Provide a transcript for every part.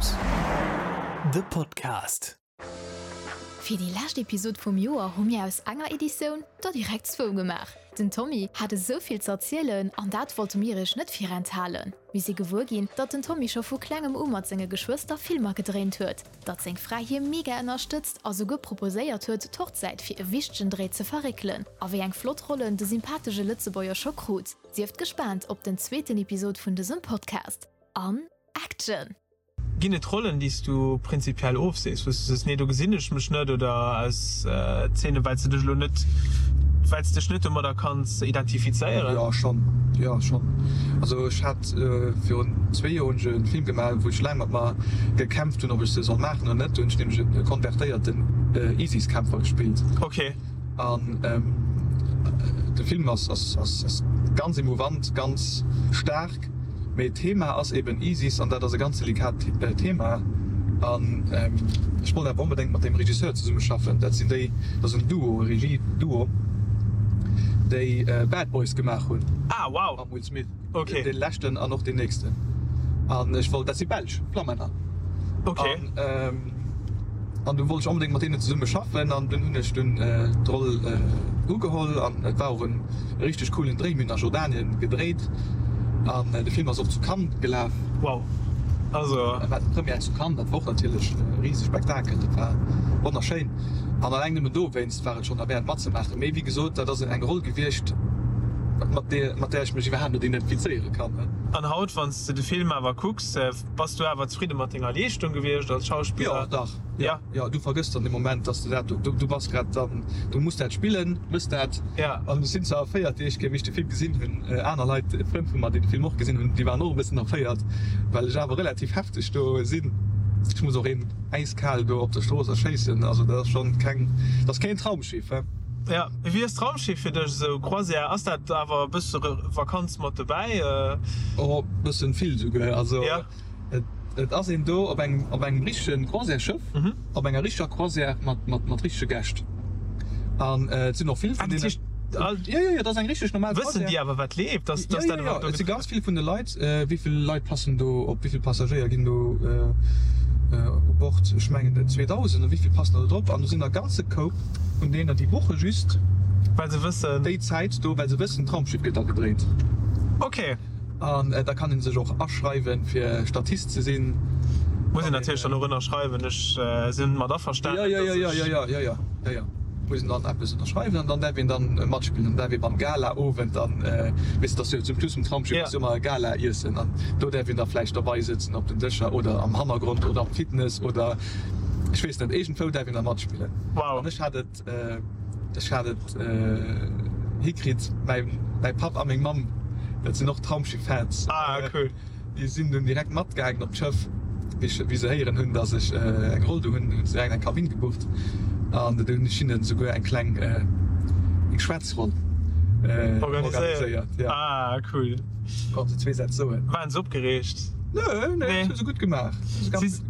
Films, de Podcast. Fir déi lescht Episod vum Joer hu mir aus enger Editioun der direkt zwou gemaach. Den Tommy hat esou vill ze erzielen an dat wollte mir iech net virenthalen. Mir si gewuer ginn, datt den Tommy scho vu klengem u mat senge Geschwëster Filmer gedréint huet, datt seng Fra hie mega ënnerstëtzt a souguer proposéiert huet, d'Hochzäit fir e wichtegen Dréi ze verréckelen a wéi eng flott Rollen de sympathesche Lëtzebuerger scho krut. Sieft gespaant op den zweeten Episod vun dësem Podcast. An Action! Ginn et Rollen, déi s du prinzipiell ofsees, wou s du sees, nee do gesinn ech mech net, oder aus Zeenen, well s de dech elo net, well s dech net domadder kanns identifizéieren? Jo, schonn, jo schonn. Also ech hat virun zwee Joer hunn ech e Film gemaach, wou ech laang mat mer gekämpft hunn, ob ech se soll maachen oder net. Do hunn ech nämlech e konvertéierten ISIS-Kämpfer gespillt. Okay. An de Film ass ganz emouvant, ganz staark, mee d'Thema ass eben ISIS an dat ass e ganz delikat Thema. An ech wollt awer onbedéngt mat deem Regisseur zesummeschaffen. Dat sinn déi, dat ass en Duo, e Regie-Duo, déi Bad Boys gemaach hunn. Ah, wow! Mam Will Smith. Okay. Dee leschten an och deen nächsten. An ech wollt, dat si Belsch, Flammänner. Okay. An, an du wollt ech onbedéngt mat deenen zesumme schaffen an dunn hunn ech dunn d'Roll ugeholl an et war och en richteg coolen Dréi. Mir hunn a Jordanien gedréit an de Film ass och zu Cannes gelaf. Wow. Also. Et war d'Première zu Cannes, dat war och natierlech e rise Spektakel, dat war wonnerschéin an alleng nëmmen dowéinst war et schonn derwäert matzemaachen. Mee wéi gesot, dat ass eng Roll gewiescht, mat där ech mech iwwerhaapt net identifizéiere kann. An haut, wann s de de Film awer kucks, bass du awer zefridde mat denger Leeschtung gewiescht als Schauspiller? Jo, dach. Jo, jo, du vergëss dann dee Moment, dass du dat do, du bass grad dann, du muss dat spillen, mëss dat. An ech sinn zwar erféiert, déi éischt Kéier, wéi ech de Film gesinn hunn, aner Leit, Frënn vu mer, déi de Film och gesinn hunn, déi waren och e bëssen erféiert, well ech awer relativ hefteg do sinn. Ech muss och een äiskal do op der Strooss erschéissen, also dat ass schonn keng, dat ass keen Traumschiff, he. Jo, wéi ass d'Traumschiff fir dech esou, Croisière, ass dat awer e bësse Vakanz mat dobäi? Oh, bëssen vill souguer, also et ass een do op engem, op engem richtegen Croisièresschëff, op enger richteger Croisière mat, mat, mat richtege Gäscht an et sinn och vill vun deenen. Jo, jo, jo, dat ass eng richteg normal Croisière. Wëssen déi awer wat leeft? Dass, dass dat iwwerhaapt do. Jo, jo, et si ganz vill vun de Leit. Wéi vill Leit passen do op? Wéi vill Passagéier ginn do u Bord? Ech mengen et 2.000 oder wéi vill passen der do drop? An do sinn der e ganze Koup vun deenen, déi buche just Well se wëssen. déi Zäit do, well se wëssen, d'Traumschiff gëtt da gedréint. Ok. An da kann ee sech och aschreiwen, fir Statist ze sinn. Muss een natierlech dann och ënnerschreiwen, ech sinn mat averstanen, dass ech. Jo, jo, jo, jo, jo, jo, jo, jo. Muss een dann eppes ënnerschreiwen an dann däerf een dann matspillen. Dann däerf ee beim Gala-Owend dann, weess de, dass jo zum Schluss vum Traumschiff ass jo ëmmer e Gala-Iessen an do däerf een da vläicht derbei sëtzen op den Dëscher oder am Hannergrond oder am Fitness oder ech weess net, iergendwou däerf een da matspillen. Wow. An ech hat et, ech hat et hikritt, mäi, mäi Papp a meng Mamm, dat sinn och Traumschiff-Fans. Ah, cool. Déi sinn dunn direkt matgaangen op d'Schëff. Wéi se héieren hunn, dass ech eng Roll do hunn, hunn se direkt eng Kabinn gebucht an do hunn ech hinnen esouguer eng kleng eng Schwätzronn organiséiert. Ah cool. Konnte se zwee Sätz soen. Waren se opgereegt? Nö, nö, dat hu se gutt gemaach.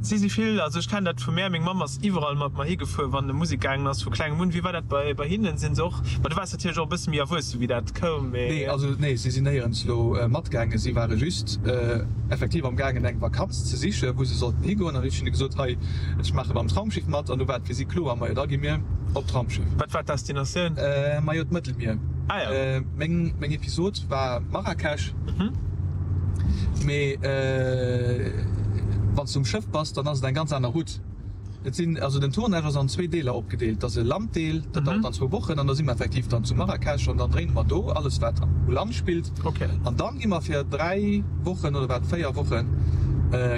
Si si vill, also ech kennen dat vu mär, meng Mamm ass iwwerall mat mer higefuer, wann e Musek gaangen ass, vu klengem un. Wéi war dat bei hinnen? Sinn se och, ma du waars natierlech och e bësse méi erwuesse wéi dat koum, mee. Nee, also nee, si sinn néierens elo matgaangen. Si ware just effektiv am gaangen eng Vakanz ze sichen, wou se sollten higoen. An ech hunn hinne gesot, hei, ech maache beim Traumschiff mat. An du war et fir si kloer, majo da gi mir op d'Traumschiff. Wat war d'Destinatioun? Majo d'Mëttelmier. Ah jo. Meng, meng Episod war Marrakesch. Mee wann s du um Schëff bass, dann ass et eng ganz aner Route. Et sinn, also den Tournage ass an zwee Deeler opgedeelt. Et ass e Landdeel, dat dauert dann zwou Wochen an da si mer effektiv dann zu Marrakesch an dann dréine mer do alles wat u Land spillt. An dann gi mer fir 3 Wochen oder wat 4 Wochen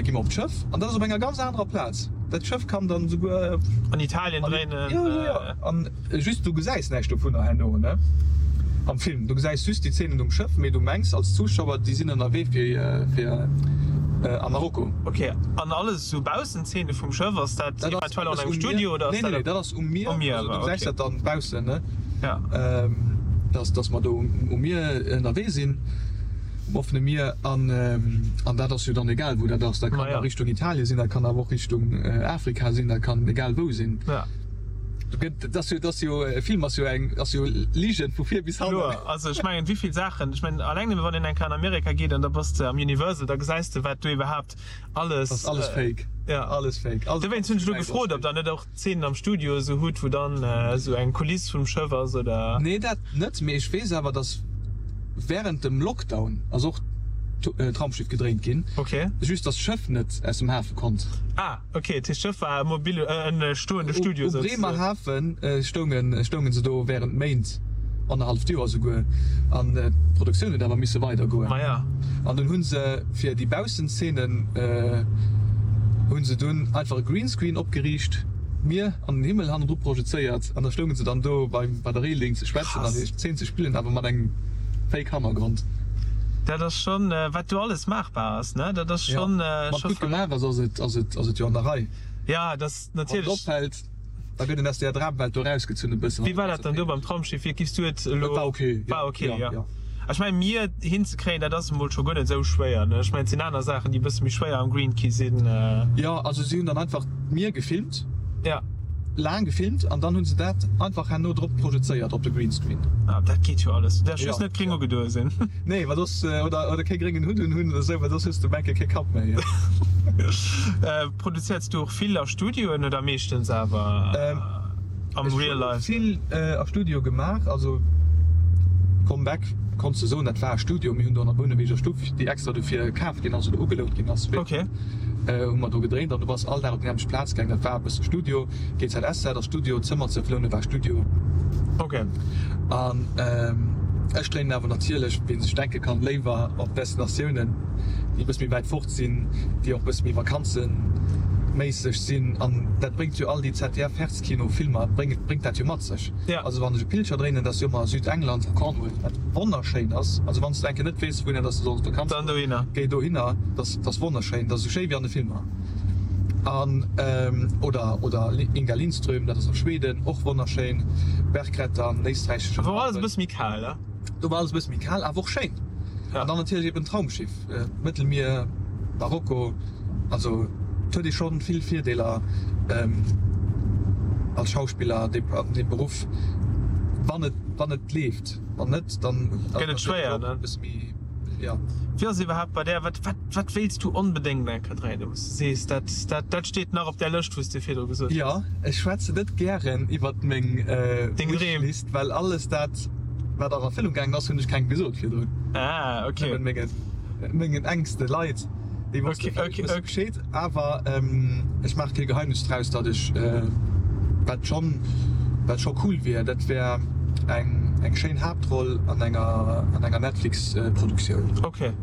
gi mer op d'Schëff an dat ass op enger ganz anerer Plaz. Dat Schëff kann dann esouguer. An Italien dréinen. Jo, jo, jo. An just du gesäis näischt dovunner herno, ne, am Film. Du gesäis just déi Zeenen um Schëff, mee du mengs als Zuschauer, déi sinn ënnerwee fir fir a Marokko. Ok, an alles esou Baussenzeene vum Schëff, ass dat eventuell an engem Studio oder ass dat? Nee, nee, dat ass um Mier. Um Mier, also du gesäis dat dann baussen, ne? Ja. Dass dass mer do um Mier ënnerwee sinn, um offene Mier an an dat ass jo dann egal wou dat ass. Dat kann a Richtung Italien sinn, dat kann awer och Richtung Afrika sinn, dat kann egal wou sinn. Ja. Do gëtt, dat ass jo, dat ass jo, e Film ass jo eng, ass jo Ligen vu vir bis hannen. Kloer, also ech mengen, wéi vill Saachen, ech mengen, alleng nëmme wann een eng Kéier an Amerika geet an da bass de am Universal, da gesäis de wat do iwwerhaapt alles. Ass alles fake. Ja. Alles fake. Alles Dowéinst hunn ech elo gefrot, ob der net och Zeenen am Studio esou hutt, wou dann esou eng Kuliss vum Schëff ass oder. Nee, dat net, mee ech weess awer, dass während dem Lockdown ass och d'Raumschiff gedréint ginn. Okay. Just dass d'Schëff net aus dem Hafe konnt. Ah. Ok, dat heescht d'Schëff war e mobile, e stoende Studio U souzesoen. Bremerhaven stoungen, stoungen se do während Méint, annerhalleft Joer souguer, an d'Produktioun huet awer misse weidergoen. Maja. An dunn hu se fir déi Baussenzenen hu se dunn einfach e Greenscreen opgeriicht, d'Mier an den Himmel hannendru projezéiert an da stounge se dann do beim, bei der Reeling ze schwätzen an Krass. hir Zeen ze spillen, awer mat engem Fake Hannergrond. Dat ass schonn, wat do alles maachbar ass, ne? Dat ass Ja, schonn, wann et scho gutt verréckt. gemaach ass, ass et, ass et, ass et jo an der Rei. Ja, dat ass Wann et natierlech. opfält, da gëtt een aus där Dramwelt do erausgezunn e bëssen. Wéi war dat dann do beim Traumschiff? Wéi giffs du et elo? Et war ok, ja. War ok, Ja, ja. ja. Ech mengen, Mier hinzekréien, dat ass emol scho guer net esou schwéier, ne? Ech mengen, et sinn aner Saachen, déi e bësse méi schwéier am Green Key sinn. Jo, also si hunn dann einfach d'Mier gefilmt. Ja. Laang gefilmt an dann hunn se dat einfach herno drop projezéiert op de Greenscreen. Ah, dat geet jo alles. Du däerfs Ja. just net gréng ugedoe sinn. Nee, well soss, oder, oder kee gréngen Hutt un hunn oder sou, well soss hues de enke kee Kapp méi. Produzéiers du och vill a Studioen oder meeschtens awer am Ech Real hunn Life? vill a Studio gemaach, also Comeback konns de soen, dat war e Studio. Mir hunn do an der Bouneweger Stuff, déi extra dofir kaf ginn ass oder ugelount ginn ass, Okay. hu mer do gedréint an du bass all Dag op déi nämmlecht Plaz gaang. Dat war e bësse Studio. GZSZ ass Studio, Zëmmer ze flounen war Studio. Okay. An ech dréinen awer natierlech, wéi een sech denke kann, léiwer op Destinatiounen, déi e bësse méi wäit fort sinn, déi och e bësse méi vakanzeméisseg sinn. An dat bréngt jo all déi ZDF-Herzkino-Filmer bréngt dat jo mat sech. Also wann ech e Pilcher dréinen, dat ass jo ëmmer Südengland, Cornwall, wat wonnerschéin ass. Also wann s de eng Kéier net weess, wouhinner dass de solls Vakanz goen, géi dohinner, dat ass wonnerschéin, dat ass esou schéi wéi an de Filmer. An oder oder Inga Lindström, dat ass a Schweden, och wonnerschéin, Bergklettern, éisträichesche Do war alles e bësse méi kal, ne? Do war alles e bësse méi kal, awer och schéin. An dann natierlech eben Traumschiff, Mëttelmier, Marokko, also et huet ee scho vill Virdeeler als Schauspiller an deem Beruff, wann et wann et leeft. Wann net, dann gëtt et schwéier, ne? E bësse méi, jo. Wéi ass et iwwerhaapt bei där? Wat wat wat wéilts du onbedéngt eng Kéier dréinen, wou s de sees, dat dat dat steet nach op där Lëscht, wou s de virdru gesot hues? Jo, ech schwätzen net gären iwwert meng Deng Dreem. Wishlist, well alles dat, wat an Erfëllung gaangen ass, hunn ech kengem gesot virdrun. Ah, ok. Nëmmen mengen mengen enkste Leit, déi wosste vläicht e bësse Bescheed. Awer ech maache kee Geheimnis draus, datt ech, wat schonn, wat scho cool wier, dat wär eng, eng schéin Haaptroll an enger, an enger Netflix-Produktioun. Ok.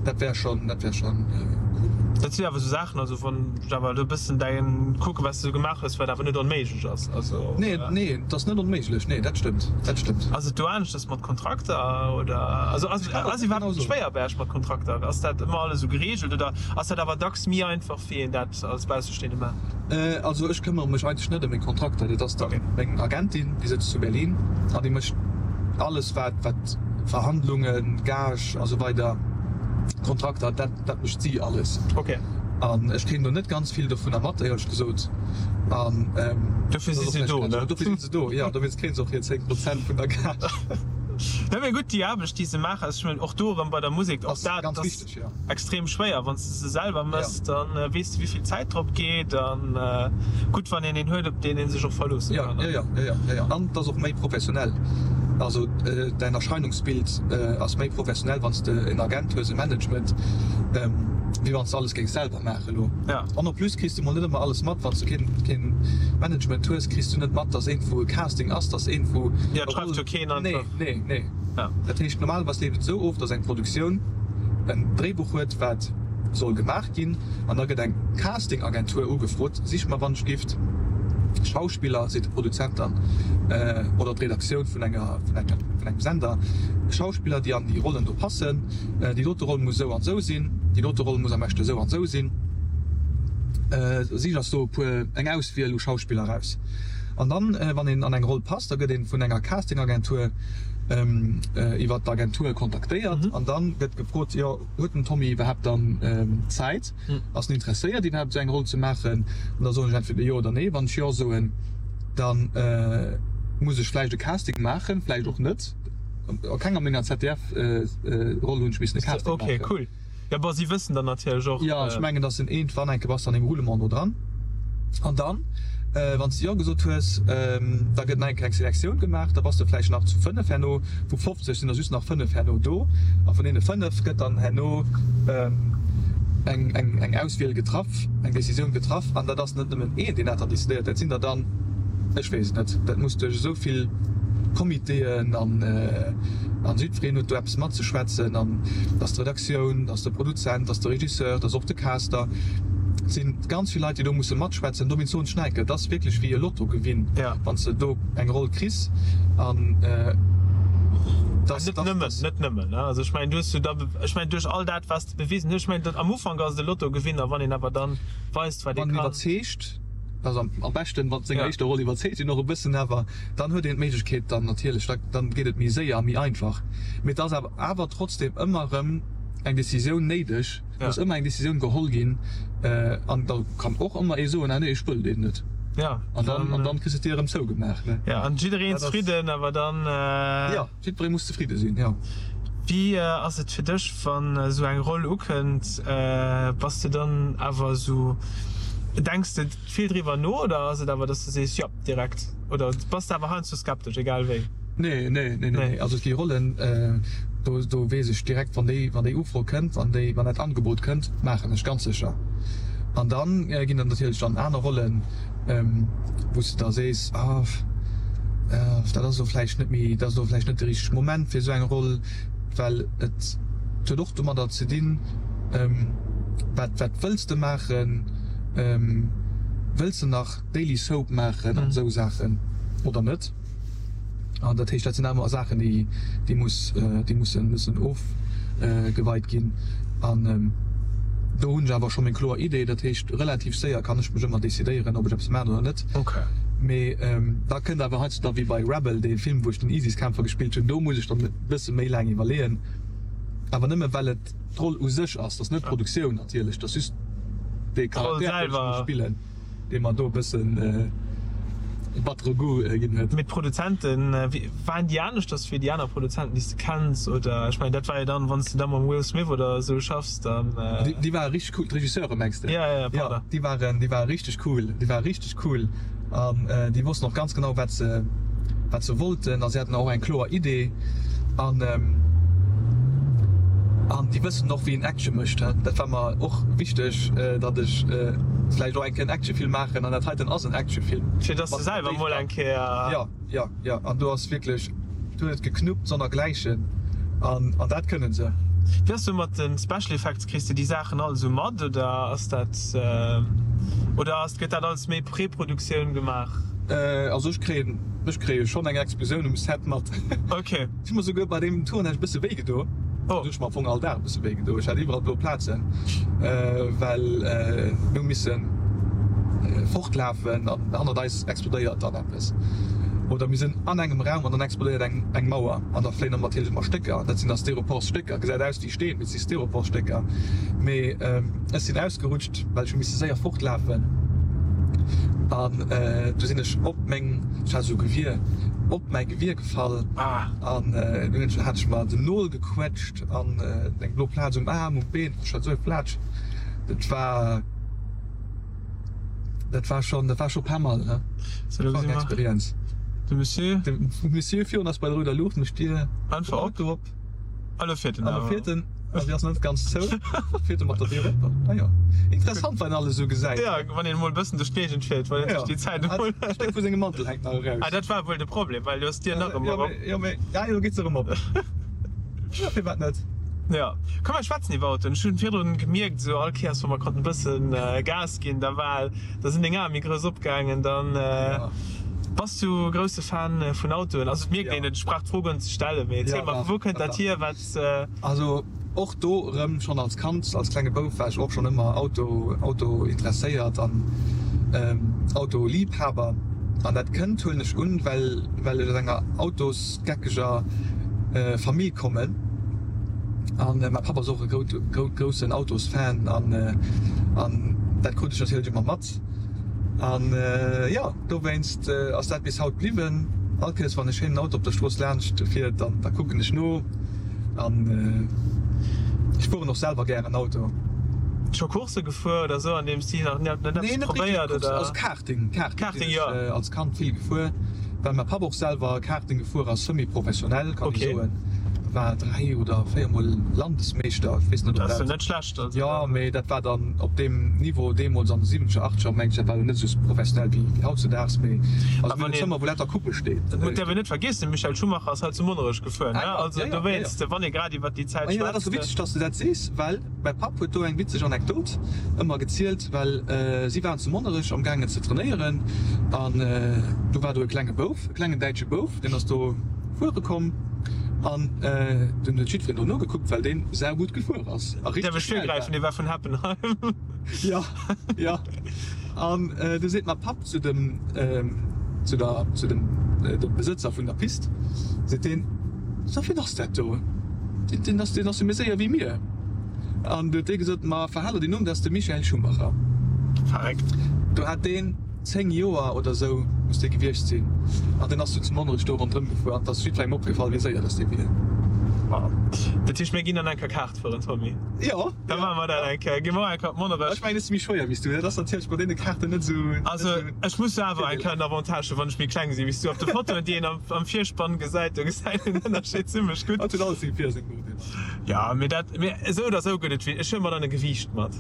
Dat wär schonn, dat wär schonn cool. Dat sinn awer esou Saachen, also wann ech awer elo e bëssen däin kucken, wat s de esou gemaach hues, wat awer net onméiglech ass, also. Nee, nee, et ass net onméiglech, nee, dat stëmmt, dat stëmmt. Ass et do aneschters mat Kontrakter oder, also ass, ass iwwerhaapt schwéier bei Iech mat Kontrakter? Ass dat ëmmer alles esou gereegelt oder? Ass dat awer dacks méi einfach wéi een dat als Baussestehende maacht? Also ech këmmere mech eigentlech net ëm meng Kontrakter, dat ass dann meng Agentin, déi sëtzt zu Berlin an déi mécht alles wat wat Verhandlungen, Gage a sou weider, Kontrakter, dat dat mécht si alles. An ech kréien do net ganz vill dovunner mat éierlech gesot an Dofir si se do, ne? Dofir si se do, jo, dowéinst kréie se och hir 10 Prozent vun der Gage. Jo mee gutt, déi Aarbecht déi se maachen, ech mengen och do erëm bei der Musek, och dat ass. Extrem schwéier. Wann s de se selwer mëss, da weess de wéivill Zäit drop geet an gutt wann een een huet op deen ee sech och verloosse kann. Jo, jo, jo, jo, an et ass och méi professionell. Also däin Erscheinungsbild ass méi professionell wann s de en Agent hues, e Management, wéi wann s de alles géings selwer maache lo. An en plus kriss de mol net ëmmer alles mat. Wann s de keen, keen Management hues, kriss du net mat, dass iergendwou e Casting ass, dass iergendwou. Jo, et schreift jo keen einfach. Nee, nee, nee. Dat heescht, normalerweis leeft et esou of, dass eng Produktioun en Dréibuch huet, wat soll gemaach ginn, an da gëtt eng Casting-Agentur ugefrot, Sich mer wann ech gift Schauspiller, seet de Produzent dann, oder d'Redaktioun vun enger, vun engem, vun engem Sender, Schauspiller, déi an déi Rollen do passen. Déi dote Roll muss esou an esou sinn, déi dote Roll muss am beschte esou an esou sinn. Sich eis do e puer, eng Auswiel u Schauspiller eraus. An dann, wann een an eng Roll passt, da gëtt ee vun enger Casting-Agentur iwwer d'Agentur kontaktéiert an dann gëtt gefrot, jo huet den Tommy iwwerhaapt dann Zäit, ass en interesséiert iwwerhaapt esou eng Roll ze maachen? An da soen ech entweder jo oder nee. Wann ech jo soen, Da muss ech vläicht e Casting maachen, vläicht och net. A kenger menger ZDF-Roll hunn ech missen e Casting maachen. Ok, cool. Jo, bon, si wëssen dann natierlech och. Jo, ech mengen, dass en iergendwann eng Kéier bass de an deem Roulement do dran. An dann, wann s de Jo gesot hues, da gëtt nach eng Kéier eng Selektioun gemaach. Da bass de vläicht nach zu 5 herno. Vu 50 sinn der just nach 5 herno do. A vun deene 5 gëtt dann herno eng, eng, eng Auswiel getraff, eng Decisioun getraff. An dat ass net nëmmen een, deen dat dann decidéiert. Dat sinn der dann, ech weess et net, dat muss duerch esou vill Comitéen an, an jiddwereen huet do eppes matzeschwätzen. An et ass d'Redaktioun, et ass de Produzent, et ass de Regisseur, et ass och de Caster. Et si ganz vill Leit, déi do musse matschwätzen. Dowéinst soen ech nach eng Kéier, et ass wierklech wéi e Lottogewinn, wann s de do eng Roll kriss. An dat, Net nëmmen, net nëmmen, ne? Also ech mengen, du hues jo da, ech mengen, duerch all dat, wat s de bewisen hues, ech mengen, am Ufank ass et e Lottogewinn, a wann een awer dann weist, wat ee kann. Wann een iwwerzeegt, also am beschten, mat senger éischter Roll iwwerzeegt een och e bëssen, awer dann huet een d'Méiglechkeet dann natierlech, da dann geet et méi séier a méi einfach. Mee et ass awer awer trotzdem ëmmer erëm eng Decisioun néideg, et muss ëmmer eng Decisioun geholl ginn an da kann och ëmmer ee soen, ah nee, ech wëll deen net. An dann an dann kriss de d'Dier erëm zougemaach, ne. Jo, an jiddereen zefridden, awer dann. Jo. Jiddweree muss zefridde sinn, jo. Wéi ass et fir dech, wann esou eng Roll ukënnt? Bass de dann awer esou, denks de vill driwwer no oder ass et awer, dass de sees, jo, direkt? Oder bass de awer heiansdo skeptesch, egal wéi? Nee, nee, nee, nee. Also et gi Rollen, do, do weess ech direkt, wann déi, wann déi Ufro kënnt, wann déi, wann dat Angebot kënnt, maachen ech ganz sécher. An dann ginn der natierlech dann aner Rollen, wou s de da sees, ah, dat ass elo vläicht net méi, dat ass elo vläicht net de richtege Moment fir esou eng Roll, well et huet och domadder ze dinn, wat, wat wëlls de maachen, wëlls de nach Daily Soap maachen an esou Saachen oder net? An dat heescht, dat sinn awer Saachen, déi, déi muss, déi mussen, mussen ofgeweit ginn. An do hunn ech awer scho meng kloer Idee. Dat heescht, relativ séier kann ech mech ëmmer decidéieren, ob ech eppes maachen oder net. Mee da kënnt awer heiansdo da wéi bei Rebel, dee Film, wou ech den ISIS-Kämpfer gespillt hunn, do muss ech dann e bësse méi laang iwwerleeën. Awer nëmme well et d'Roll u sech ass, dat ass net d'Produktioun natierlech, dat ass just dee Charakter, deen ech muss spillen. Dee mer do e bëssen e battere Goût ginn huet. Mee d'Produzenten, waren déi aneschters wéi déi aner Produzenten, déi s de kenns? Oder, ech mengen, dat war jo dann, wann s de da mam Will Smith oder esou schaffs, dann. Déi ware richteg cool, d'Regisseure mengs de? Ja, ja, pardon. Jo, déi waren, déi ware richteg cool, déi ware richteg cool an déi wossten och ganz genau, wat se, wat se wollten a si haten och eng kloer Idee an, an déi wëssen och, wéi een Action mécht. Dat war mer och wichteg, datt ech vläicht och eng Kéier en Actionfilm maachen an dat heiten ass en Actionfilm. Fir dass de selwer mol eng Kéier. Jo, jo, jo. An do ass wierklech, do huet et geknuppt sonnergläichen an an dat kënne se. Wéi ass du mat de Special Effects? Kriss de déi Saachen all esou mat oder ass dat, oder ass, gëtt dat alles méi Preproduktioun gemaach? Also ech kréien, ech kréie schonn eng Explosioun um Set mat. Ok. Ech hu mer souguer bei deem Tournage e bësse wéi gedo. Oh. Ech hu mer am Fong all Dag e bësse wéi gedo. Ech hat iwwerall blo Plazen, well mir hu misse fortlafen an hannert eis explodéiert dann eppes. Oder mir sinn an engem Raum an dann explodéiert eng eng Mauer an da fléien dann natierlech ëmmer Stécker. Dat sinn da Styroporstécker. Gesäit aus wéi Steen, mee et si Styroporstécker. Mee ech sinn ausgerutscht, well ech hu misse séier fortlafen an du sinn ech op meng, ech hat esou e Gewier, op mäi Gewier gefall an dunn hat ech mer den Nol gequetscht an eng blo Plaz um Aarm, um Been, ech hat esou e Flatsch, dat war, dat war schon, dat war scho pas mal, ne? Dat war eng Experienz. De Monsieur? De Monsieur virun ass bei der rouder Luucht, mécht d'Dier einfach op. A lo fiert en awer. A lo fiert en, a si ass net ganz zou. Fiert e mat der Dier op. Ah jo. Interessant, wat een alles esou gesäit. Jo, wann een emol e bëssen duerch d'Géigend fiert, wann een sech déi Zäit emol. E Stéck vu sengem Mantel hänkt nach eraus. Ah, dat war wuel de Problem, well du hues d'Dier nach ëmmer op. Jo, mee, ah jo, lo geet se erëm op. Jo, firwat net? Jo. Komm, mer schwätzen iwwer Autoen. Ech hunn virdrun gemierkt, esou all Kéiers, wa mer konnten e bëssen Gas ginn, da war, da sinn deng Ae méi grouss opgaangen. Dann. Bass du grousse Fan vun Autoen? Also et mierkt een et, ech brauch d'Fro guer net ze stellen, mee erziel mer, vu wou kënnt dat hier, wat. Also och do erëm, schonn als Kand, als klenge Bouf war ech och schonn ëmmer Auto, Auto interesséiert an Autoliebhaber. An dat kënnt, huelen ech un, well well ech aus enger autosgeckeger Famill kommen. An mäi Papp ass och e groussen Autosfan an an dat krut ech natierlech ëmmer mat. An jo, dowéinst ass dat bis haut bliwwen. All Kéiers wann e schéinen Auto op der Strooss laanscht fiert, dann da kucken ech no. An ech fueren och selwer gären Auto. Scho Coursse gefuer oder sou an deem Stil? Nach net eppes probéiert oder? Also Karting, Karting sinn ech als Kand vill gefuer, well mäi Papp och selwer Karting gefuer ass, semi-professionell kann ee soen. War 3 oder 4 mol Landesmeeschter, ech weess net ob dat. Dat ass jo net schlecht. Also jo, mee dat war dann op deem Niveau deemools an de siwwenzeger, achtzeger, mengen ech, dat war jo net esou professionell wéi hautzedaags, mee also mir hunn e Zëmmer wou lauter Coupe steet. Dat däerf een net vergiessen, de Michael Schumacher ass hei zu Monnerech gefuer, ne? Also dowéinst, wann ee grad iwwert déi Zäit schwätzt. Dat ass witzeg, dass de dat sees, well mäi Papp huet do eng witzeg Anekdot ëmmer gezielt, well si waren zu Monnerech am gaangen ze trainéieren an du war do e klenge Bouf, e klengen däitsche Bouf, deen ass do fuere komm an dunn huet jiddwereen do nogekuckt, well deen saugutt gefuer ass a richteg schnell war. Dee war vun Heppenheim. Jo, jo. An du seet mäi Papp zu dem, zu der, zu dem, dem Besëtzer vun der Pist, seet deen, So, wien ass dat do? Deen, deen ass, deen ass jo méi séier wéi mir. An du huet dee gesot, Ma verhal der deen Numm, dat ass de Michael Schumacher. Verréckt. Do hat deen 10 Joer oder esou muss dee gewiescht sinn. An deen ass du zu Monnerech do ronderëm gefuer an et ass jiddwerengem opgefall, wéi séier dass dee wier. Wow. Dat heescht, mir ginn dann eng Kéier Kaart fueren, Tommy? Jo. Da maache mer dat eng Kéier. Gi mer och eng Kéier op Monnerech. Ech mengen, ech si méi schwéier wéi s du. Dat ass natierlech bei deene Kaarten net esou. Also, ech muss jo awer eng Kéier en Avantage hunn, wann ech méi kleng si wéi s du. Op de Fotoen, déi een am Virspann gesäit, do gesäit een den Ënnerscheed zimmlech gutt. Hatt huet alles seng Vir a seng Nodeeler. Jo, mee dat, mee esou oder esou gëtt et wéi, ech huele mer dann e Gewiicht mat.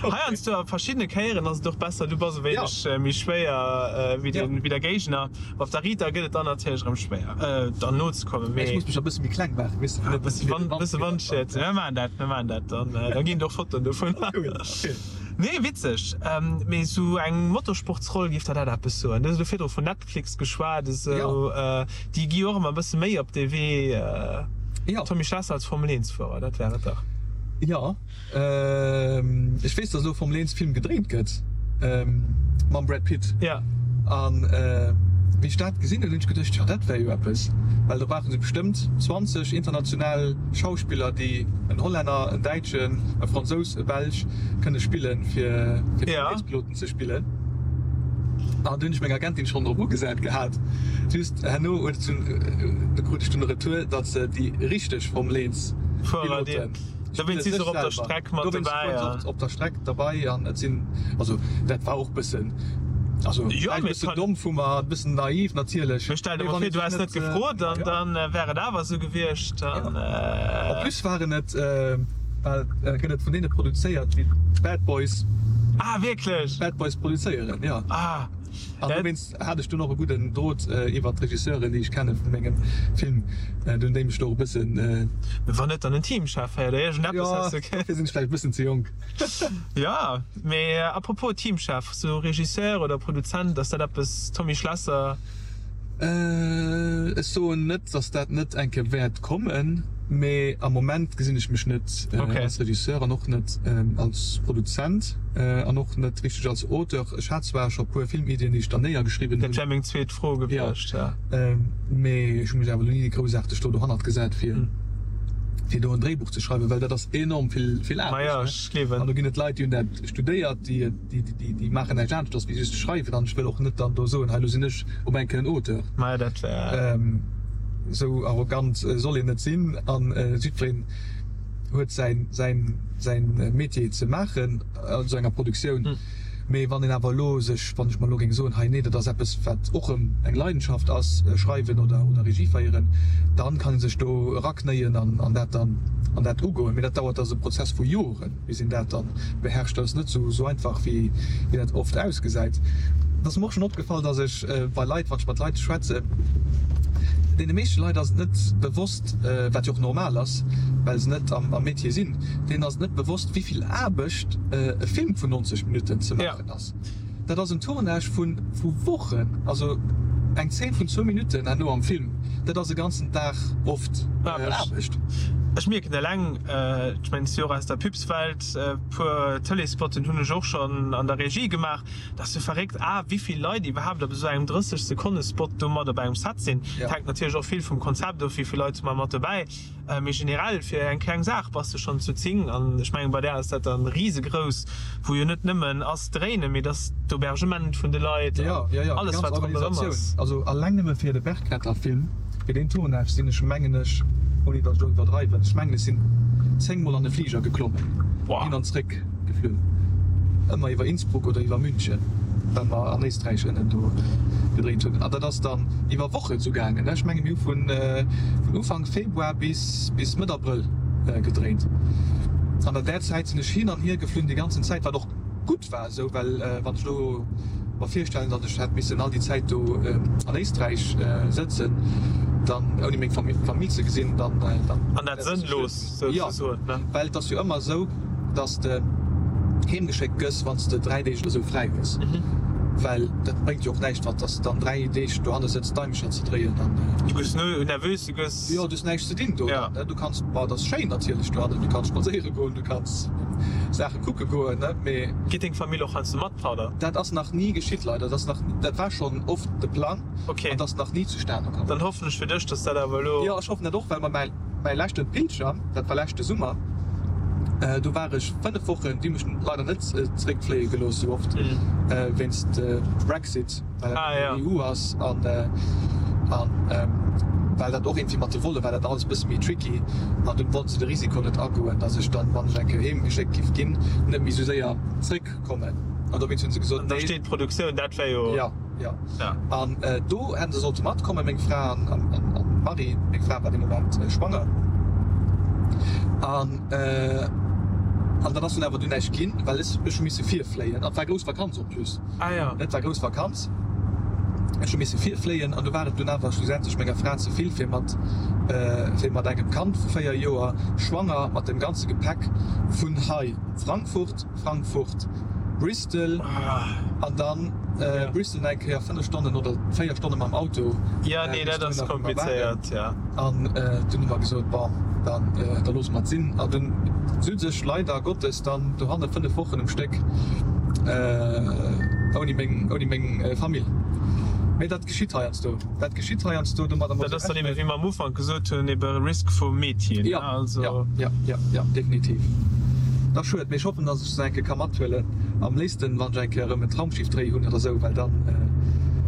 Heiansdo, a verschiddene Kéieren ass et och besser, du bass e wéineg méi schwéier wéi den, wéi der Géigner. Op der Rita gëtt et dann natierlech erëm schwéier, dann nozekommen, mee. Ech muss mech e bësse méi kleng maachen, weess de, fir net ze vill. Bësse Wandschied. Mir maachen dat, mir maachen dat. Dann, da ginn et och Fotoen dovun. Cool, okay. Nee, witzeg. Mee esou eng Motorsportsroll, géif der dat eppes soen? Du hues elo virdru vun Netflix geschwat, esou. Déi gi jo och ëmmer e bësse méi op dee Wee. Jo. Tommy Schlesser als Formel 1 Fuerer, dat wär et dach. Jo. Ech weess, dass elo e Formel 1 Film gedréint gëtt mam Brad Pitt. Ja. An wéi ech dat gesinn hunn, hunn ech geduecht, jo dat wär jo eppes, well do brauche se bestëmmt 20 international Schauspiller, déi en Hollänner, en Däitschen, e Fransous, e Belsch kënne spillen, fir fir Formel 1 Piloten ze spillen. An do hunn ech meng Agentin schonn drop ugesat gehat. Just herno huet et dunn, do krut ech dunn e Retour, datt se déi richteg Formel 1 Piloten, Dowéinst si se och op der Streck mat dobäi. Dowéinst op der Streck derbei an et sinn, also dat war och bëssen, also vläicht e bëssen domm vu mer, e bëssen naiv natierlech. Mee stell der mol vir, du häss net gefrot an dann wär et awer esou gewiescht. En plus waren et, well gëtt et vun deene produzéiert, déi d'Bad Boys. Ah wierklech? Bad Boys produzéieren, jo. Ah. An dowéinst hat ech dunn och e gudden Drot iwwert d'Regisseuren, déi ech kenne vu mengem Film, dunn déi mech do och e bëssen. Mee wann net dann en Teamchef hei oder iergendeppes häss du. Jo, dofir sinn ech vläicht e bëssen ze jonk. Jo, mee à propos Teamchef, sou Regisseur oder Produzent, ass dat eppes, Tommy Schlesser? Ech soen net, datt dat net eng Kéier wäert kommen, mee am Moment gesinn ech mech net als Regisseur an och net als Produzent an och net richteg als Auteur. Ech hat zwar scho puer Filmiddien, déi ech dann néiergeschriwwen hunn. Dat wär meng zweet Fro gewiescht, jo. Mee ech hu mech awer elo ni groussaarteg do dohannert gesat, fir do en Dréibuch ze schreiwen, well dat ass enorm vill Aarbecht. An do ginn et Leit, déi hunn dat studéiert, déi. Déi maachen näischt aneschters wéi just schreiwen an ech wëll och net dann do soen, hei elo sinn ech op eng Kéier en Auteur. Maja, dat wär. Esou arrogant soll een net sinn an jiddwereen huet säin, säin, säin Métier ze maachen an esou enger Produktioun. Mee wann een awer elo sech, wann ech mer elo géing soen, hei nee, dat ass eppes wat och erëm eng Leidenschaft ass, schreiwen oder, oder Regie féieren, dann kann ee sech do eraknéien an, an dat dann, an dat ugoen. Mee dat dauert, dat ass e Prozess vu Joren. Bis een dat dann beherrscht, dat ass net esou einfach wéi dat oft ausgesäit. Et ass mer och schonn opgefall, dass ech bei Leit, wann ech mat Leit schwätzen, deene meeschte Leit ass et net bewosst, wat jo och normal ass, well se net am Métier sinn, deenen ass et net bewosst, wéi vill Aarbecht e Film vun 90 Minutten ze maachen ass. Dat ass en Tournage vu Wochen, also eng Zeen vun zwou Minutten herno am Film, dat ass e ganzen Dag oft Aarbecht. Ech mierken eleng, ech mengen, ech si och aus der Pubswelt, e puer Tëleesspotten hunn ech och schonn an der Regie gemaach, dat ass jo verréckt, a wéi vill Leit iwwerhaapt op esou engem 30 Sekonne Spot do mat op engem Set sinn. Dat hänkt natierlech och vill vum Konzept of, wéi vill Leit hu mer mat dobäi. Mee generell fir eng kleng Saach bass de schonn zu 10 an ech mengen bei där ass dat dann risegrouss, wou jo net nëmmen ass dréinen, mee dass d'Aubergement vun de Leit an alles wat ronderëm ass. Also alleng nëmme fir de Bergretterfilm, fir deen Tournage sinn ech mengen ech, ouni datt ech elo iwwerdreiwen, ech mengen ech sinn 10 mol an e Fliger geklommen, hin an zréck geflunn, ëmmer iwwer Innsbruck oder iwwer München, well mer an Éisträich ënnen do gedréint hunn. An dat ass dann iwwer Wochen esou gaangen. Ech menge mir hu vun Ufank Februar bis bis Mëtt Abrëll gedréint. An an där Zäit sinn ech hin an hier geflunn déi ganzen Zäit, wat och gutt war esou, well wann ech elo mer virstellen, datt ech hätt missen all déi Zäit do an Éisträich sëtzen, dann ouni meng Famill ze gesinn, dann dann. An dat sënnlos souzesoen, ne? Jo, well et ass jo ëmmer esou, datt s de heemgeschéckt gëss, wann s de 3 Deeg oder esou fräi hues, well dat bréngt jo och näischt, wann s de dann 3 Deeg dohanne sëtz Daimecher ze dréien an. Du gëss nervös, du gëss. Jo, du hues näischt ze dinn do dann, ne? Du kanns, bon, et ass schéin natierlech dohannen, du kanns spadséiere goen, du kanns Saache kucke goen, ne, mee. Geet deng Famill och heiansdo mat, Pader? Dat ass nach ni geschitt, leider. Dat ass nach, dat war schonn oft de Plang an et ass nach ni zustane komm. Dann hoffen ech fir dech, dass dat awer elo. Jo, ech hoffen dat och, well mer mäi, mäi leschte Pilger, dat war leschte Summer, do war ech 5 Wochen, déi hu mech leider net zeréckfléie gelooss esou oft, wéinst Brexit. well dat an der EU ass an well dat och iergendwéi mat de Volle war dat alles e bësse méi tricky an dunn wollten se de Risiko net agoen, datt ech dann, wann ech eng Kéier heem geschéckt giff ginn, net méi esou séier zréckkommen an dowéinst hunn se gesot, An da steet d'Produktioun, dat wär jo. Jo, jo. An do hätten se sollte matkommen, meng Fra an d'Marie, meng Fra war dee Moment schwanger an an dat ass dunn awer dunn näischt ginn, well ech hu misse virfléien an et war grouss Vakanz en plus. Ah ja. Et war grouss Vakanz. Ech hu misse virfléien an du war et dunn awer schlussendlech menger Fra ze vill fir mat fir mat engem Kand vu 4 Joer, schwanger, mat dem ganze Gepäck vun hei Frankfurt, Frankfurt, Bristol an dann Bristol nach eng Kéier 5 Stonnen oder 4 Stonne mam Auto. Ja, nee, dat ass komplizéiert, ja. An dunn hu mer gesot, bon, dann da loosse mer et sinn. An dunn sot ech leider Gottes dann dohanne 5 Wochen um Stéck ouni meng, ouni meng Famill. Mee dat geschitt heiansdo, dat geschitt heiansdo, domadder muss ee rechnen. Dat ass dann ebe, wéi mer am Ufank gesot hunn, ebe Risk vum Metier, ne? Also. Jo, jo, jo, jo, definitiv. Dat ass schued, mee ech hoffen, dass ech se eng Kéier ka mathuelen. Am léifsten, wann ech eng Kéier erëm en Traumschiff-Dréi hunn oder esou, well dann,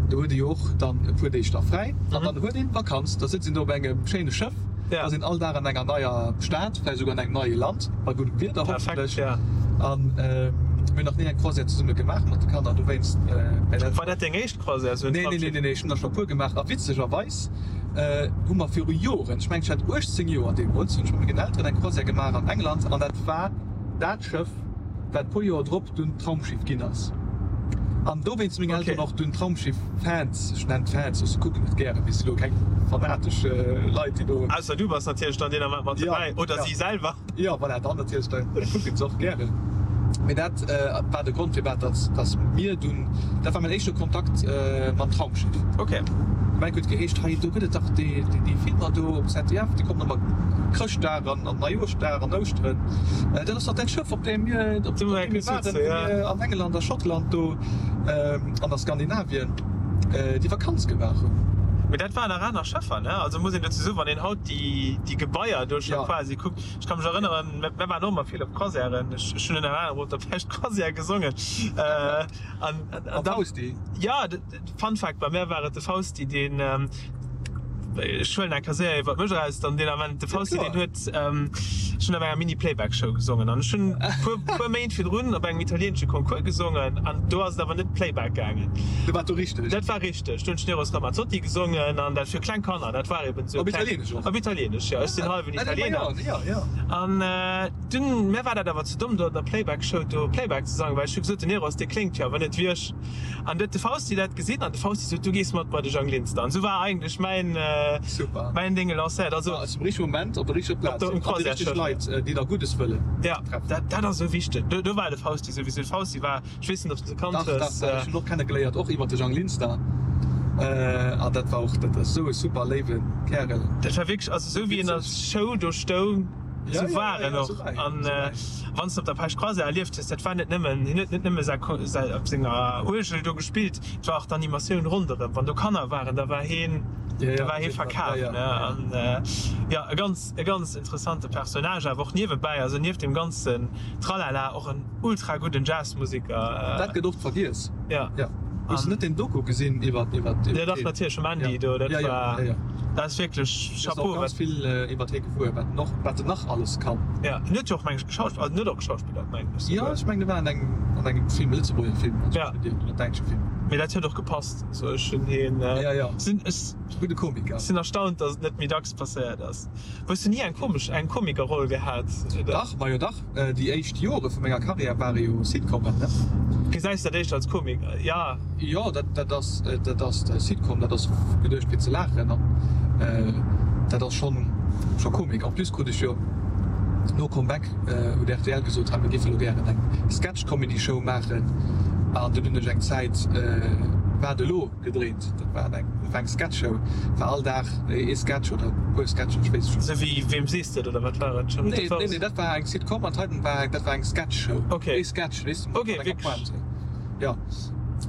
do huet ee jo och dann e puer Deeg da fräi an dann huet een Vakanz. Da sëtzt een do op engem schéine Schëff, da ass een all Dag an enger neier Stad, vläicht esouguer an engem neie Land, bei guddem Wieder hoffentlech. An mir hunn nach ni eng Croisière zesumme gemaach mat de Kanner, dowéinst. War dat deng éischt Croisière, esou en Traumschiff? Nee, nee, nee, ech hunn der scho e puer gemaach a witzegerweis hu mer viru Joren, ech mengen ech hat 18 Joer deemools, hunn ech mat mengen Elteren eng Croisière gemaach an England an dat war dat Schëff, wat puer Joer drop dunn d'Traumschiff ginn ass. An dowéinst si meng Elteren och dunn Traumschiff-Fans, ech nennen d'Fans, ech kucken et gären, mee si lo keng fanatesch Leit, déi do. Ausser du bass natierlech dann deen Ament mat dobäi, oder si selwer. Jo, voilà, dann natierlech, da kucken se och gären. Mee dat war de Grond, firwat dass dass mir dunn, dat war mäin éischte Kontakt mam Traumschiff. Ok. De Mike huet geheescht, hei do gëtt et dach déi déi Filmer do op ZDF, déi kommen ëmmer Chrëschtdag an an Neijoerschdag an Ouschteren. Dat ass dach dat Schëff, op deem mir, op deem mir waren, wou mir an England a Schottland do an a Skandinavien déi Vakanz gemaach hunn. Mee dat waren nach aner Schëffer, ne? Also muss een dozou soen, wann een haut déi déi Gebaier do scho quasi kuckt, ech ka mech erënneren, mir waren och ëmmer vill op Croisièren, ech hunn ënner anerem op der Pescht Croisière gesongen an an da. Fausti? Jo, Fun Fact, bei mär war et de Fausti, deen, ech huelen eng Kéier iwwert mech eraus, dann deen Ament, de Fausti, deen huet, ech hunn op enger Mini-Playback-Show gesongen an ech hunn puer, puer Méint virdrun op engem italieenesche Concours gesongen an do ass et awer net Playback gaangen. Dat war do richteg? Dat war richteg. Do hunn ech den Eros Ramazzotti gesongen an dat fir kleng Kanner, dat war eben esou. Op Italieenesch och? Op Italieenesch, jo. Ech sinn hallwen Italiener. Jo, jo. An dunn, mär war dat awer ze domm, do an der Playback-Show do Playback ze sangen, well ech hu gesot, den Eros, dee kléngt jo awer net wéi ech. An du huet de Fausti dat gesinn an de Fausti sot, du gees mat bei de Jang Linster. An esou war eigentlech mäin, Super. mäin Ding lancéiert. Also, War zum richtege Moment op der richteger Plaz sinn an déi richteg Leit, déi der Guddes wëllen, Ja, treffen. dat, dat ass esou wichteg. Do, do war de Fausti souwisou. De Fausti war, ech weess net, ob s de se kannt Dach, dach, hues. dach, ech hunn och kennegeléiert, och iwwer de Jang Linster. An dat war och, dat ass esou e super léiwe Kärel. Dat war wierklech, also esou wéi en als Show do stoung, esou war en och. An wann s de op der Pech Croisée erlieft hues, dat war net nëmmen, hien huet net nëmme säi, säi op senger Uergel do gespillt, et war och d'Animatioun ronderëm. Wann do Kanner waren, da war hien, da war hie verkaf, ne. An jo, e ganz, e ganz interessante Personnage awer och niewebäi, also nieft deem ganzen Tralala och en ultra gudden Jazzmusiker. Dat gëtt oft vergiess. Ja. Ja. Hues du net deen Doku gesinn iwwer iwwer iwwer Ja dach natierlech vum Andy do, dat war dat ass wierklech Chapeau. Ganz vill iwwer hie gewuer, wat en och wat en nach alles kann. Ja, en huet jo och meng ech geschauspillert, also en huet och geschauspillert meng ech souguer. Jo ech mengen e war an engem an engem Film, e Lëtzebuerger Film, also ja. oder däitsche Film. Mee dat huet och gepasst, also ech hunn hien ja ja sinn ech gudde Komiker. Sinn erstaunt, datt et net méi dacks passéiert ass. Hues du ni eng komesch eng Komikerroll gehat oder? Dach, majo dach. Déi éischt Jore vu menger Karriär ware jo Sitcomen, ne? Gesäis dat éischter als Komik, jo? Jo, dat ass, dat ass Sitcom, dat ass geduecht fir ze laachen an dat ass schonn, scho Komik. En plus krut ech jo no Comeback huet rtl gesot, hei mir géife lo gären eng Sketch-Comedy-Show maachen an dunn hunn ech eng Zäit Wat elo? Gedréint. Dat war eng, dat war eng Sketchshow, war all Dag ee Sketch oder e puer Sketchen, ech weess et scho. Sou wéi Wem sees de et oder wat war et? Nee, nee, nee, dat war eng Sitcom an d'heiten war, dat war eng Sketchshow. Okay. Ee Sketch, weess de, mat enger Pointe. Jo.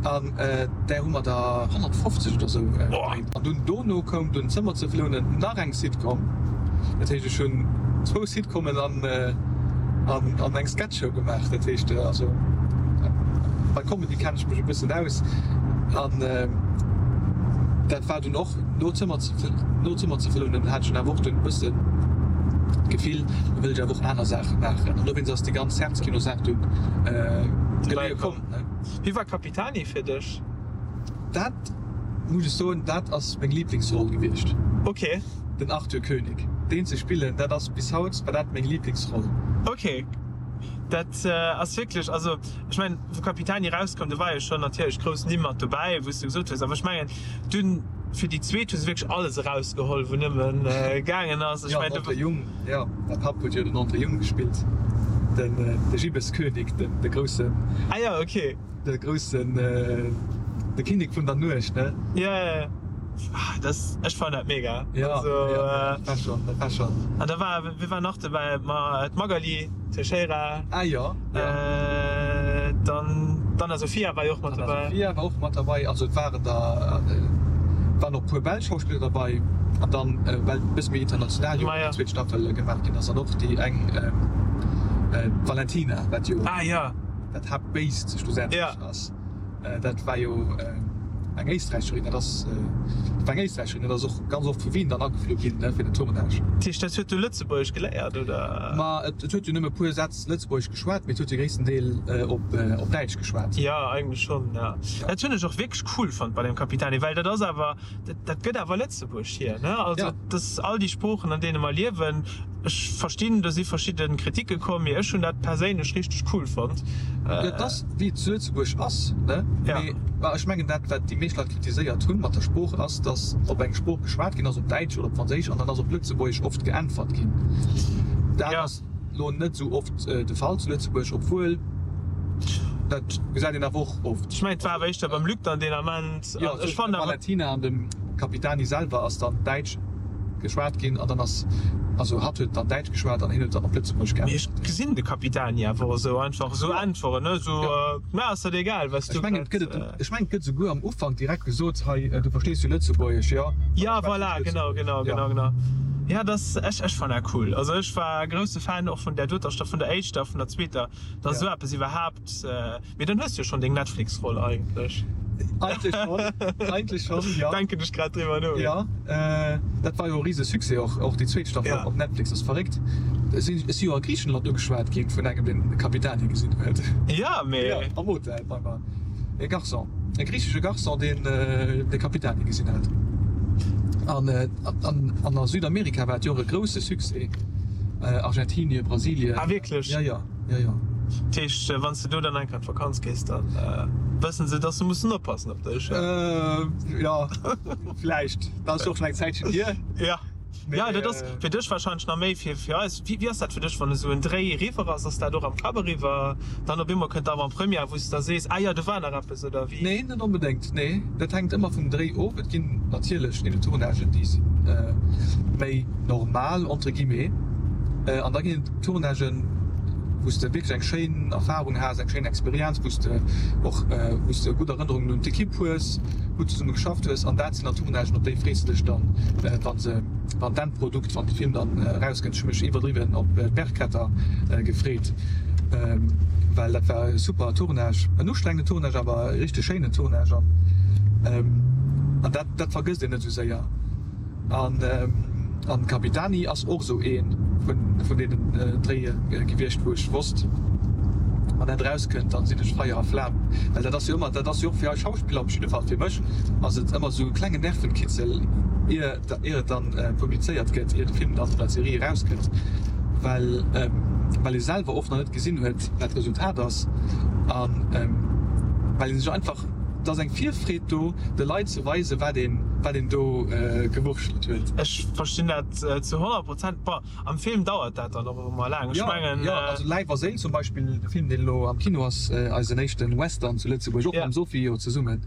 An där hu mer der 150 oder sou gedréint. An dunn dono koum dunn Zëmmer ze flounen, nach eng Sitcom. Dat heescht, ech hunn zwou Sitcomen an, an, an eng Sketchshow gemaach. Dat heescht, also bei Comedy kennen ech mech e bëssen aus. An dat war dunn och no Zëmmer ze, no Zëmmer ze flounen, hat ech dunn awer och dunn e bëssen d'Gefill, lo wëll ech awer och aner Saache maachen. An dowéinst ass déi ganz Herzkino-Saach dunn geleeë komm. Wie war Capitani fir dech? Dat muss ech soen, dat ass meng Liblingsroll gewiescht. Ok. Den Arthur Koenig, deen ze spillen, dat ass bis haut war dat meng Liblingsroll. Ok, dat ass wierklech, also ech mengen wou Capitani erauskoum, do war jo schonn natierlech grouss Nimm mat dobäi, wou s de gesot hues, awer ech mengen dunn fir déi zweet hu se wierklech alles erausgeholl wou nëmmen gaangen ass. Ech mengen do. Jo, den André Jung, jo, mäi Papp huet jo den André Jung gespillt, den de Gibbeskönig, den de groussen. Ah jo, ok. De groussen, de Kinnek vun der Nuecht, ne? Jo, jo, jo. Ah, das, ech fannen dat mega. Jo, also, jo, dat war schon, dat war schon. An da war, wie war nach dobäi? Ma d'Magali Teixeira. Ah jo, jo. Dann d'Anna Sophia war jo och mat dobäi. D'Anna Sophia war och mat derbei. Also et waren der, et waren och e puer belsch Schauspiller derbei. An dann, well et e bësse méi international jo déi zweet Staffel gemaach ginn ass, an och déi eng, d'Valentina, wat jo. Ah jo. Dat Haaptbéist schlussendlech ass. Dat war jo eng Éisträicherin, dat ass, dat war eng Éisträicherin, dat ass och ganz oft vu Wien dann ageflu ginn, ne, fir den Tournage. Dat heescht, dat huet du Lëtzebuergesch geléiert, oder? Ma et huet jo nëmme e puer Sätz Lëtzebuergesch geschwat, mee et huet jo gréissten Deel op op Däitsch geschwat. Jo, eigentlech schonn, jo. Dat hunn ech och wierklech cool fonnt bei dem Capitani, well dat ass awer, dat dat gëtt awer Lëtzebuerg hier, ne? Also, dat ass all déi Sproochen, an deene mer liewen. Ech verstinn, do si verschidde Kritike komm, mee ech hunn dat perséinlech richteg cool fonnt. Dat ass wéi et zu Lëtzebuerg ass, ne? Mee ech mengen dat wat déi meescht Leit kritiséiert hunn mat der Sprooch ass, datt op eng Sprooch geschwat ginn ass, op Däitsch oder op Franséisch, an dann ass op Lëtzebuergesch oft geäntwert ginn. Dat ass elo net esou oft de Fall zu Lëtzebuerg, obwuel dat gesäit een awer och oft. Ech mengen et war awer éischter beim Luc dann deen Ament. Jo, tëschent dem Valentina an dem Capitani selwer ass dann Däitsch geschwat ginn an dann ass, also hatt huet dann Däitsch geschwat an hien huet dann op Lëtzebuergesch geäntwert. Mee ech gesinn de Capitani awer och esou einfach esou äntweren, ne, esou, Mir ass dat egal, wat s du Ech mengen, et gëtt et, ech mengen, et gëtt esouguer am Ufank direkt gesot, hei, du verstees jo Lëtzebuergesch, jo? Ja, voilà, genau, genau, genau, genau. Ja, dass, ech, ech fannen dat cool. Also ech war grousse Fan och vun där doter Staffel, vun der éischter, vun der zweeter, dass esou eppes iwwerhaapt, Mee dann hues du jo schon deng Netflix-Roll eigentlech. Eigentlech schon, eigentlech schon, jo. Denken ech grad driwwer no. Jo, dat war jo e rise Succès och, och déi zweet Staffel op Netflix ass verréckt. Ech si jo a Griichenland ugeschwat ginn vun engem deen de Capitani gesinn huet. Jo, mee. Jo, am Hotel bei mer. E Garçon, e griichesche Garçon deen de Capitani gesinn hat. An an a Südamerika war et jo och e grousse Succès, Argentinien, Brasilien. Ah wierklech? Jo, jo. Jo, jo. Dat heescht, wann s de do dann eng Kéier an d'Vakanz gees, da wëssen se, dass se mussen oppassen op dech? Jo, vläicht. Dat ass jo och schonn eng Zäitchen hier. Jo. Jo, dat ass fir dech warscheinlech nach méi fir fir eis. Wéi ass dat fir dech, wann esou en Dréi eriwwer ass? Ass dat och am Kapp eriwwer? Dann op eemol kënnt d'Avant-première, wou s de da sees, ah jo, do war nach eppes, oder wéi? Nee, net onbedéngt, nee. Dat hänkt ëmmer vum Dréi of. Et ginn natierlech ebe Tournagen, déi si méi normal, entre guillemets, an da ginn et Tournagen, wou s de wierklech eng schéin Erfarung has, eng schéin Experienz, wou s de och, wou s de gutt Erënnerungen un d'Ekipp hues, gutt zesumme geschafft hues. An dat sinn dann Tournagen, op déi frees de dech dann, wa se, wann d'Endprodukt, wann de Film dann erauskënnt. Ech hu mech iwwerdriwwen op d'Bergretter gefreet, well dat war e super Tournage, en ustrengenden Tournage, awer e richteg schéinen Tournage an dat, dat vergësst een net esou séier. An an Capitani ass och esou ee vun vun deenen Dréie gewiescht, wou ech wosst, wann dat erauskënnt, dann sinn ech Feier a Flam. Well dat ass jo ëmmer, dat ass jo och fir eis Schauspiller, op jidde Fall fir mech ass et ëmmer esou e klengen Nervenkitzel, ier ier et dann publizéiert gëtt, ier de Film dann oder d'Serie erauskënnt, well well ee selwer oft nach net gesinn huet, wat d'Resultat ass an well ee sech einfach, et ass eng Virfreed do, de Leit ze weisen, wat een wat een do gewurschtelt huet. Ech verstinn dat zu 100 Prozent. Bon, am Film dauert dat dann och ëmmer laang. Ech mengen. Jo, also Läif a Séil zum Beispill, de Film, deen elo am Kino ass, eisen éischten Western zu Lëtzebuerg, och mam Sophie jo zesummen.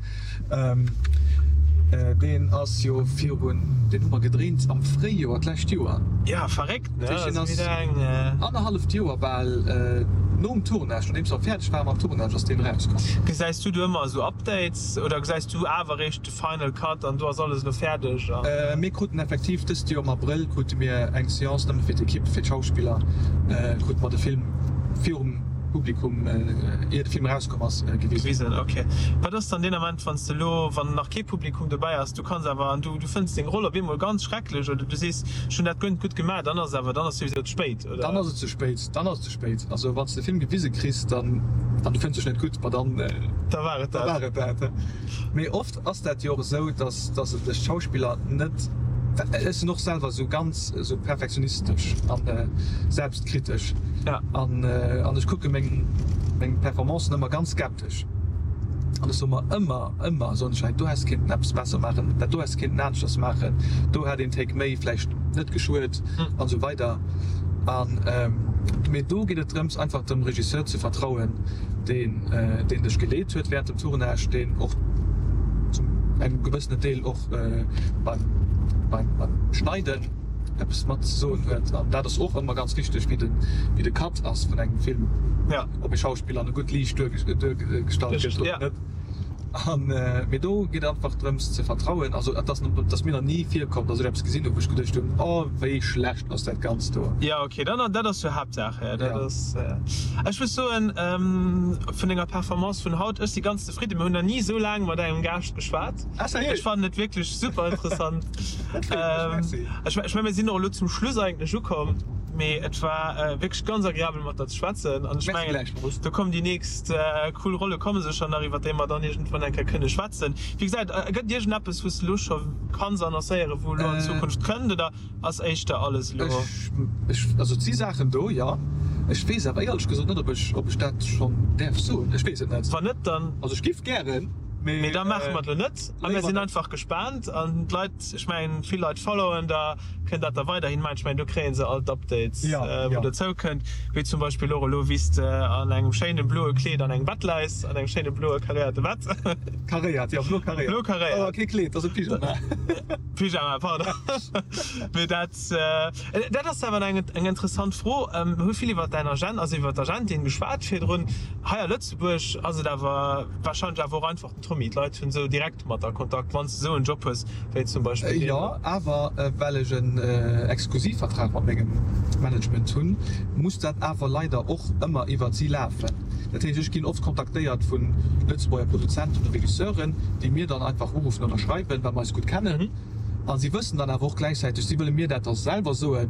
Deen ass jo virun, deen hu mer gedréint am Fréijoer d'lescht Joer. Ja, verréckt, ne? Dat heescht, deen ass annerhalleft Joer bal nom Tournage, nodeems mer fäerdeg ware mam Tournage, ass deen erauskomm. Gesäis du do ëmmer esou Updates oder gesäis du awer eréischt de Final Cut an do ass alles elo fäerdeg an? Mir kruten effektiv dëst Joer am Abrëll krute mir eng Seance nëmme fir d'Ekipp, fir d'Schauspiller, krute mer de Film virum Publikum, ier de Film erauskomm ass, gewisen. Ok. Wat ass dann deen Ament, wann s de elo, wann nach kee Publikum dobäi ass, du kanns awer an du, du fënns deng Roll op eemol ganz schrecklech oder du sees, ech hunn dat guer net gutt gemaach, dann ass awer, dann ass souwisou ze spéit, oder? Dann ass et ze spéit, dann ass et ze spéit. Also wann s de de Film gewise kriss, dann, an du fënns dech net gutt, ma dann, Da war et da dat. war et dat. Mee oft ass dat jo och esou, dass, dass et sech d'Schauspiller net, ech sinn och selwer esou ganz esou perfektionistesch an selbstkritesch an, an ech kucke meng, meng Performancen ëmmer ganz skeptesch an ech soe mer ëmmer, ëmmer soen ech, hei do häss kéinten eppes besser maachen, dat do häss kéinten aneschters maachen, do hätt een Take méi vläicht net geschuet an esou weider. An, mee do geet et drëms einfach dem Regisseur ze vertrauen, deen, deen dech geleet huet während dem Tournage, deen och zum engem gewëssenen Deel och beim, beim, beim Schneiden eppes mat ze soen huet. An dat ass och ëmmer ganz wichteg, wéi de, wéi de Cut ass vun engem Film, ob e Schauspiller an e gutt Liicht duergestallt gëtt oder net. An, mee do geet et einfach drëms ze vertrauen. Also et ass, et ass mir nach ni virkomm, datt ech eppes gesinn hunn, wou ech geduecht hunn, oh wéi schlecht ass dat Ganzt do. Jo, ok, dann, dat ass jo Haaptsaach. Dat ass, ech muss soen, vun denger Performance vun haut, ech si ganz zefridden. Mir hunn nach ni esou laang mat engem Gaascht geschwat. Ah, sérieux? Ech fannen et wierklech super interessant. Dat freet mech, merci. Ech mengen, mir sinn och elo zum Schluss eigentlech ukomm, mee et war wierklech ganz agreabel mat der ze schwätzen an ech mengen, do kommen déi nächst cool Rolle komme sécher nach, iwwer déi mer dann iergendwann eng Kéier kënne schwätzen. Wéi gesait, gëtt et iergendeppes, wou s de elo scho kanns annoncéieren, wou elo an Zukunft kënnt, oder ass éischter alles elo? Ech, also et si Saachen do, jo. Ech weess awer éierlech gesot net, ob ech, ob ech dat schonn däerf soen. Ech weess et net. Wann net, dann. Also ech giff gären, mee. Mee da maache mer et elo net a mir sinn einfach gespaant an d'Leit, ech mengen, vill Leit followen der. Kënnt dat da weiderhin maachen? Ech mengen, do kréie se all d'Updates, wou dozou kënnt, wéi zum Beispill och elo, wéi s de an engem schéine bloe Kleed an engem Bett läis, an engem schéine bloe karéierte Bett. Karéiert, jo, blo karéiert. Blo karéiert. Awer kee Kleed, dat ass e Pyjama. Pyjama, pardon. Mee dat, dat ass awer eng, eng interessant Fro. Mir hu vill iwwer däin Agent, also iwwer d'Agentin geschwat virdrun. Hei a Lëtzebuerg ass et awer warscheinlech awer och einfach den Tommy. D'Leit hunn esou direkt mat a Kontakt, wann s de esou en Job hues wéi zum Beispill deen. Jo, awer well ech en Exklusivvertrag mat mengem Management hunn, muss dat awer leider och ëmmer iwwert si lafen. Dat heescht, ech ginn oft kontaktéiert vu Lëtzebuerger Produzenten oder Regisseuren, déi mir dann einfach uruffen oder schreiwen, well mer eis gutt kennen. A si wëssen dann awer och gläichzäiteg, si wëlle mir dat da selwer soen,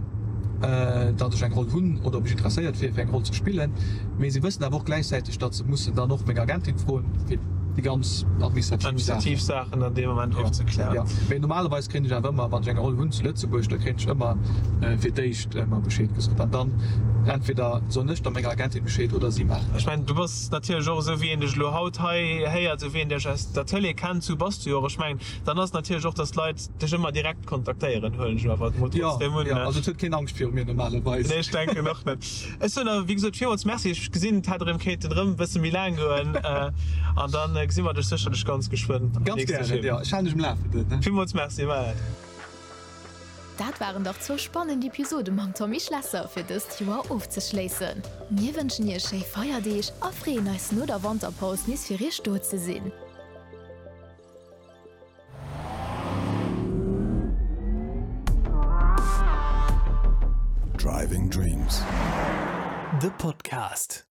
datt ech eng Roll hunn oder ob ech interesséiert wier, fir eng Roll ze spillen. Mee si wëssen awer och gläichzäiteg, datt se mussen dann och meng Agentin froen, fir. Déi ganz administrativ Administrativ Saachen an deem Moment ofzeklären. Jo, mee normalerweis kréien ech awer ëmmer, wann ech eng Roll hunn zu Lëtzebuerg, da kréien ech ëmmer fir d'éischt ëmmer Bescheed gesot an dann entweder soen ech da menger Agentin Bescheed oder si maachen et. Ech mengen, du bass natierlech och esou wéi een dech elo haut hei héiert, esou wéi een dech aus der Tëlee kennt, esou bass du jo och. Ech mengen, dann ass et natierlech och, dass d'Leit dech ëmmer direkt kontaktéieren, huelen ech awer mol trotzdem un. Jo, also et huet keen Angscht viru mir normalerweis. Nee, ech denken och net. Ech soen awer wéi gesot villmools Merci. Ech gesinn et hätt erëm kéinten erëm e bësse méi laang goen an da gesi mer dech sécherlech ganz geschwënn am Ganz nächste gären, Film. jo. Ech halen dech um Lafenden. Villmools Merci, Maël. Dat waren dach zwou spannend Episode mam Tommy Schlesser fir dëst Joer ofzeschléissen. Mir wënschen iech schéi Feierdeeg a freeën eis no der Wanterpaus nees fir iech do ze sinn. Driving Dreams, de Podcast.